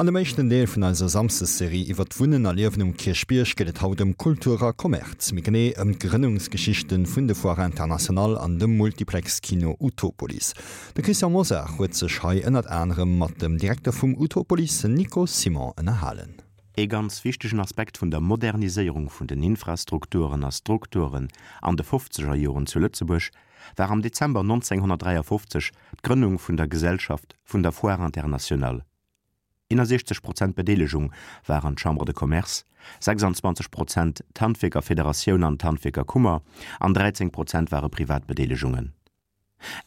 An dem éischten Deel vun eiser Samsdes-Serie iwwer d'Wunnen a Liewen um Kierchbierg geet et haut ëm Kultur a Kommerz, méi genee ëm d'Grënnungsgeschichten vun de Foire Internationale an dem Multiplex-Kino Utopolis. De Christian Mosar huet sech hei ënnert anerem mat dem Direkter vum Utopolis, Nico Simon, ënnerhalen. Ee ganz wichtegen Aspekt vun der Moderniséierung vun den Infrastrukturen a Strukturen an de fofzeger Joren zu Lëtzebuerg war am Dezember 1953 d'Grënnung vun der Gesellschaft vun der Foire Internationale. 61 Prozent Bedeelegung waren d'Chambre de Commerce, 26 Prozent d'Handwierkerfederatioun an d'Handwierkerkummer an 13 Prozent ware privat Bedeelegungen.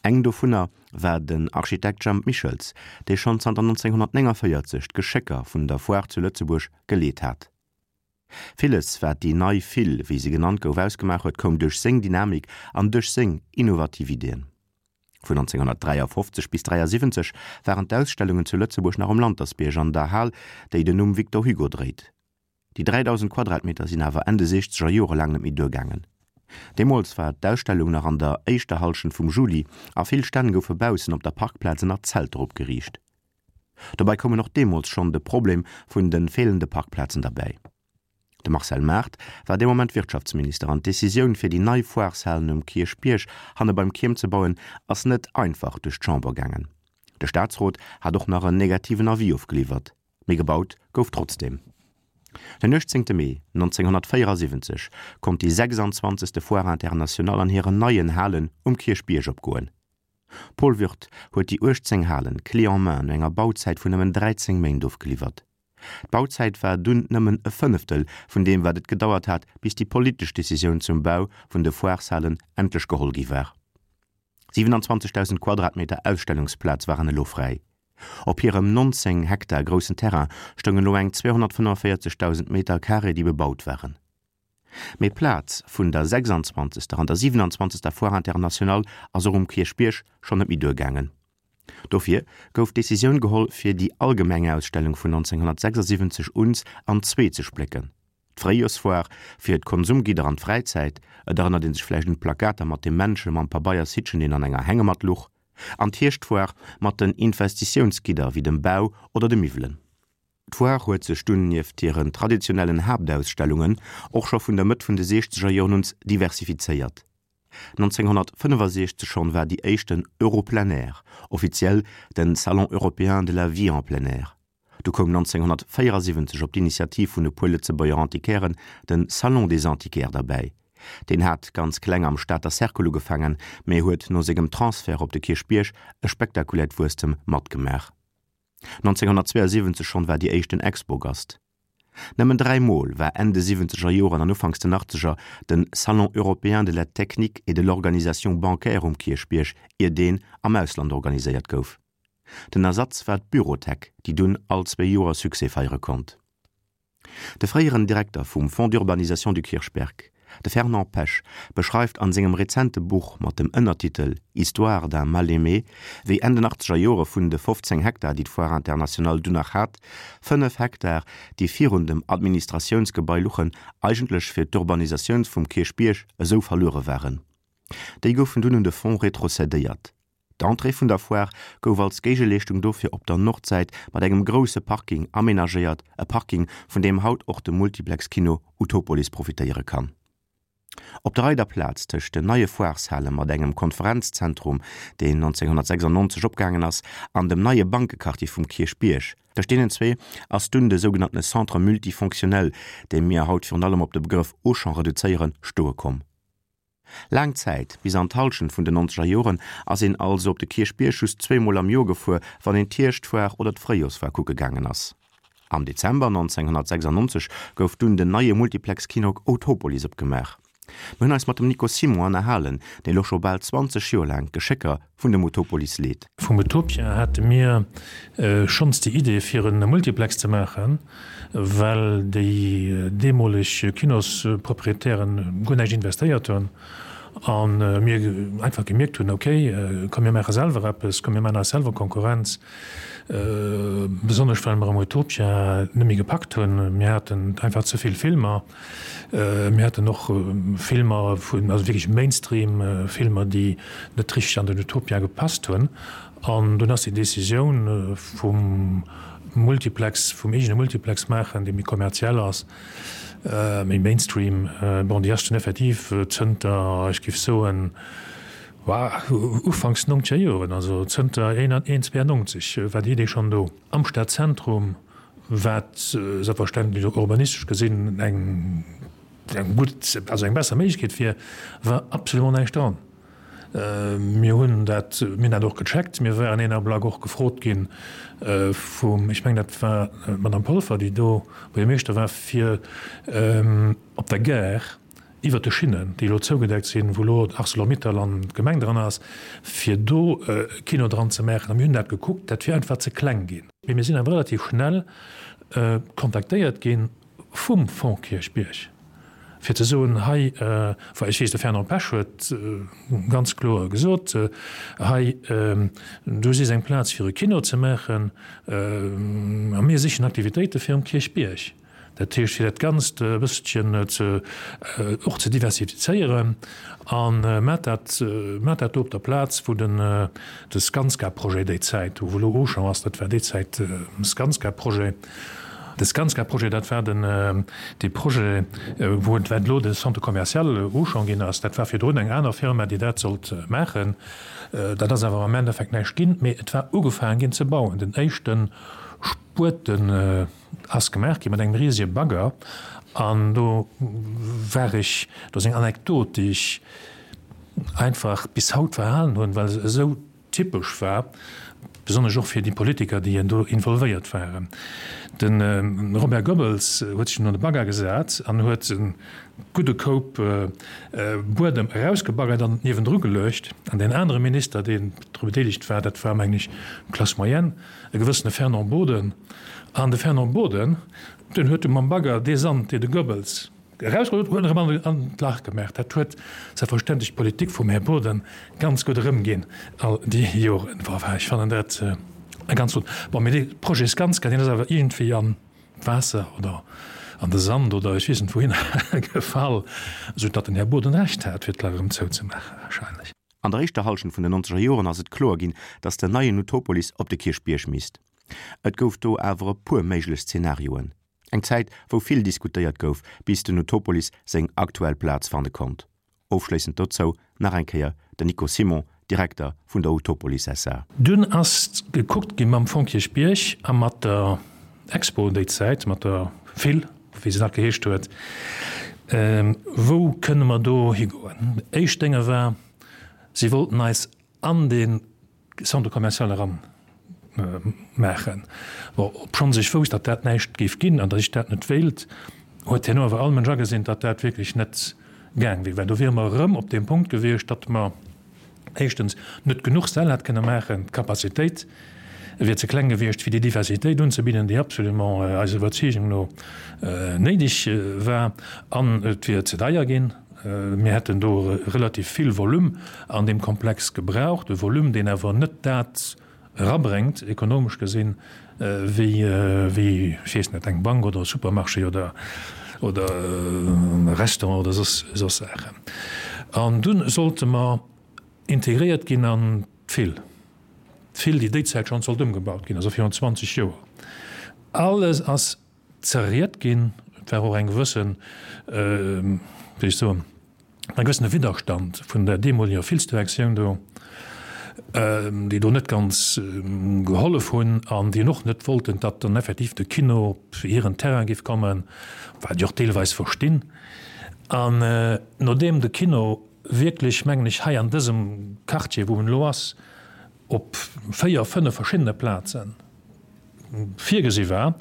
Eng dovunner war den Architekt Jemp Michels, dee schonn zanter 1949 d'Geschécker vun der Foire zu Lëtzebuerg geleet hat. Villes, wat déi nei Fil, wéi se genannt gouf, ausgemaach huet, koum duerch seng Dynamik an duerch seng innovativ Iddien. Vun 1953 bis 1973 waren d'Ausstellungen zu Lëtzebuerg nach um Lantersbierg an der Hal, déi den Numm Victor Hugo dréit. Déi 3.000 Quadratmeter sinn awer Enn de siechzeger Jore laang net méi duergaangen. Deemools war d'Ausstellung nach an der éischter Hallschent vum Juli a vill Stänn goufe baussen op der Parkplaz ënner Zelter opgeriicht. Dobäi koumen och deemools schonn de Problem vun de feelende Parkplazen derbäi. De Marcel Mart war dee Moment Wirtschaftsminister an d'Decisioun fir déi nei Foireshalen um Kierchbierg hanne beim Kierm ze bauen ass net einfach duerch d'Chamber gaangen. De Staatsrot hat och nach en negativen Avis ofgeliwwert, mee gebaut gouf trotzdeem. Den 18 Mee 1974 konnt déi 26. Foire Internationale an hiren neien Halen um Kierchbierg opgoen. Paul Würth huet déi 18 Halen clé en main no enger Bauzäit vun nëmmen 13 Méint ofgeliwwert. D'Bauzäit war dunn nëmmen e Fënneftel vun deem wat et gedauert hat bis déi politesch Decisioun zum Bau vun de Foireshalen endlech geholl gi war. 27.000 Quadratmeter Ausstellungsplaz waren elo fräi. Op hirem 19 Hektar groussen Terrain stoungen elo eng 245.000 Meter Carré déi bebaut waren. Mee d'Plaz vun der 26. an der 27. Foire Internationale ass och um Kierchbierg schonn net méi duergaangen. Dofir gouf d'Decisioun geholl, fir déi allgemeng Ausstellung vun 1976 uns an zwee ze splécken, d'Fréijoersfoire fir d'Konsumgidder an d'Fräizäit, et erënnert ee sech vläicht un d'Plakater mat dem Männche mam Pabeiershittchen, deen an enger Hängematt luch, an d'Hierschtfoire mat den Investitiounsgidder wéi dem Bau oder de Miwwelen. D'Foire huet sech dunn nieft hiren traditionellen Haaptausstellungen och scho vun der Mëtt vun de siechzeger Joren uns diversifizéiert. 1965 schonn war déi éischten Euro-Plein Air, offiziell den Salon européen de la vie en plein air. Du koum 1974 op d'Initiativ vun e puer Lëtzebuerger Antiquairen den Salon des Antiquaires derbäi. Deen hat ganz kleng am Stater Cercle ugefaangen, mä huet no sengem Transfert op de Kierchbierg e spektakuläert Wuesstem matgemaach. 1972 schonn war déi éischten Expogast. Nëmmen 3 Mol war Enn de siwwenzeger Joren an ufanks den achtzeger den Salon européen de la technique et de l'organisation bancaire um Kierchbierg, ier deen am Ausland organiséiert gouf. Den Ersatz war d'Bürotech, déi dunn all zwee Joer Succès feiere konnt. De fréieren Direkter vum Fonds d'urbanisation du Kirchberg, de Fernand Pesch, beschreift an sengem rezente Buch mat dem Ënnertitel Histoire d'un mal-aimé, wéi Enn den achtzeger Jore vun de 15 Hektar, déi d'Foire Internationale dunn nach hat, 5 Hektar, déi virun dem Administratiounsgebai luchen, eigentlech fir d'Urbanisatioun vum Kierchbierg esou verluere waren. Déi goufen dunn un de Fonds retrocedéiert. D'Entrée vun der Foire gouf als Géigeleeschtung dofir op der Nordsäit mat engem grousse Parking amenagéiert, e Parking, vun deem haut och de Multiplex-Kino Utopolis profitéiere kann. Op der Reider Plaz tëscht den neie Foireshale mat engem Konferenzzentrum, deen 1996 opgaangen ass, an dem neie Bankequartier vum Kierchbierg, tëscht deenen zwee ass dunn de sougenanntene Centre multifonctionnel, dee mir haut virun allem op de Begrëff Auchan reduzéieren, stoe komm. Laang Zäit, bis an d'Hallschent vun den nonzeger Joren, ass een also op de Kierchbierg just zweemol am Joer gefuer, wann een d'Hierschtfoire oder d'Fréijorsfoire kucke gaangen ass. Am Dezember 1996 gouf dunn den neie Multiplex-Kino Autopolis opgemaach. Mir hunn eis mat dem Nico Simon ënnerhalen, deen elo scho bal 20 Joer laang d'Geschécker vun dem Utopolis leet. Vum Utopia hate mir schonns déi Idee fir e Multiplex ze maachen, well déi deemoleg Kinosproprietären guer näischt investéiert hunn a mir einfach gemierkt hunn, ok, komm mir maache selwer eppes, komm mir maachen eis selwer Konkurrenz, besonnesch well mer am Utopia net méi gepackt hunn. Mir haten einfach ze vill Filmer. Mir haten och Filmer vun, also wierklech Mainstream-Filmer, déi net richteg an den Utopia gepasst hunn. An dunn ass déi Decisioun vum. Multiplex, vum eegene Multiplex maachen, dee méi kommerziell ass, méi Mainstream. Bon, déi ass dunn effektiv zënter, ech géif soen, ufanks nongzeger Joren, also zënter 92 war déi Idee schonn do. Am Stadzentrum, wat selbstverständlech och urbanistesch gesinn eng gutt, also eng besser Méiglechkeet wier, war absolument näischt dran. Mir hunn dat, mir hunn dat och gecheckt. Mir waren een Ablack och gefrot gi vum, ech mengen dat war d'Madame Polfer, déi do Buergermeeschter war, fir op der Gare iwwert de Schinnen, déi elo zougedeckt sinn, wou elo Arcelor-Mittal an d'Gemeng dran ass, fir do e Kino dran ze maachen. A mir hunn dat gekuckt, dat wier einfach ze kleng ginn. Mee mir sinn awer relativ schnell kontaktéiert gi vum Fonds Kierchbierg, fir ze soen, hei, well ech weess, de Fernand Pesch huet ganz kloer gesot, hei, do si eng Plaz fir e Kino ze maachen a mir sichen Aktivitéite fir um Kierchbierg. Dat heescht, fir dat Ganzt e bësselchen ze, och ze diversifizéieren a mat dat, mat dat do op der Plaz, wou den, de Skanska-Projet déi Zäit, wou elo Auchan ass, dat war déi Zäit Skanska-Projet. De Skanska-Projet, dat war den, dee Projet, wou et, wat elo de Centre commercial Auchan ginn ass. Dat war virdrun eng aner Firma, déi dat sollt maachen. Dat ass awer am Endeffekt näischt ginn, mee et war ugefaangen ginn ze bauen. Den éischte Spueten ass gemaach gi mat engem risege Bagger an do war ech, do ass eng Anekdot, déi ech einfach bis haut verhalen hunn, well se esou typesch war, besonnesch och fir déi Politiker, déi do involvéiert waren. De Robert Goebbels huet sech dunn an de Bagger gesat an huet e gudde Koup Buedem erausgebaggert an niewendru geluecht. An deen anere Minister, deen dru bedeelegt war, dat war, mengen ech, Classe moyenne, e gewëssene Fernand Boden. An de Fernand Boden, deen huet du mam Bagger dee Sand, dee de Goebbels erausgeholl huet, huet en erëm an d'Lach gemaach. Dat huet selbstverständlech d'Politik vum Här Boden ganz gutt erëmginn all déi Joren. Enfin, ech fannen dat e ganz flott. Bon, mee dee Projet Skanska, deen ass awer iergendwéi an d'Waasser oder an de Sand oder ech weess net wouhinner gefall, esou datt den Här Boden Recht hat, fir d'Lach erëm zouzemaachen wahrscheinlech. An der éischter Hallschent vun den nonzeger Joren ass et kloer ginn, datt den neien Utopolis op de Kierchbierg misst. Et gouf do awer e puer méiglech Zenarioen. Eng Zäit, wou vill diskutéiert gouf, bis den Utopolis seng aktuell Plaz fanne konnt. Ofschléissend dozou nach eng Kéier den Nico Simon, Direkter vun der Utopolis SA. Dunn ass gekuckt gi mam Fonds Kierchbierg a mat der Expo déi Zäit, mat der Phil, wéi se nach geheescht huet, wou kënne mer do higoen. Éischt Dénge war, si wollten eis an dee Centre commercial eran maachen. Bon, obschonns ech wousst, datt dat näischt géif ginn an datt ech dat net wéilt, huet herno awer all Mënsch agesinn, datt dat wierklech net gaang wier, well do wiere mer erëm op deem Punkt gewiescht, datt mer éischtens net genuch Säll hätt kënne maachen, d'Capacitéit wier ze kleng gewiescht, fir déi Diversitéit unzebidden, déi absolument eiser Iwwerzeegung no néideg war, an et wier ze deier ginn. Mir hätten do relativ vill Volume an deem Komplex gebraucht, e Volume, deen awer net dat erabréngt, ekonomesch gesinn, wéi, wéi, ech weess net, eng Bank oder e Supermarché oder, oder e Restaurant oder soss, soss Saachen. An dunn sollte mer integréiert ginn an d'Fil, d'Fil, déi déizäit schonn sollt ëmgebaut ginn, also virun 20 Joer. Alles ass zerriet ginn. Et war och eng gewëssen, wéi ech soen, e gewëssene Widderstand vun der deemoleger Filsdirektioun do, déi do net ganz gehollef hunn an déi och net wollten, datt dann effektiv de Kino op hiren Terrain géif kommen, wat ech och deelweis verstinn. An nodeem de Kino wierklech, mengen ech, hei an dësem Quartier, wou en elo ass, op 4, 5 verschiddene Plazen virgesi war,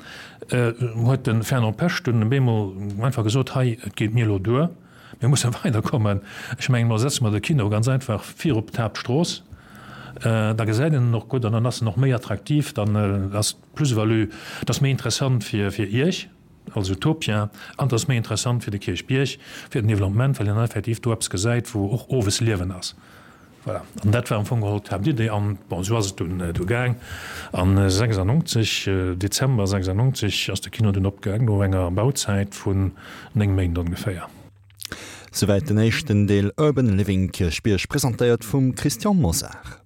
huet de Fernand Pesch dunn op eemol einfach gesot, Hei, et geet mir elo duer, mir musse weiderkommen. Ech mengen, elo setze mer de Kino ganz einfach vir op d'Haaptstrooss, da gesäit een en och gutt an dann ass en och méi attraktiv, dann ass d'Plus-value, et ass méi interessant fir Iech als Utopia an et ass méi interessant fir de Kierchbierg, fir den Developpement, well een dann effektiv do eppes gesäit, wou och owes Liewen ass. Voilà, an dat war am Fong geholl d'Haaptidee. An bon, esou ass et dunn du gaang. An 96, Dezember 96, ass de Kino dunn opgaang, no enger Bauzäit vun 9 Méint ongeféier. Souwäit den éischten Deel Urban Living Kierchbierg, presentéiert vum Christian Mosar.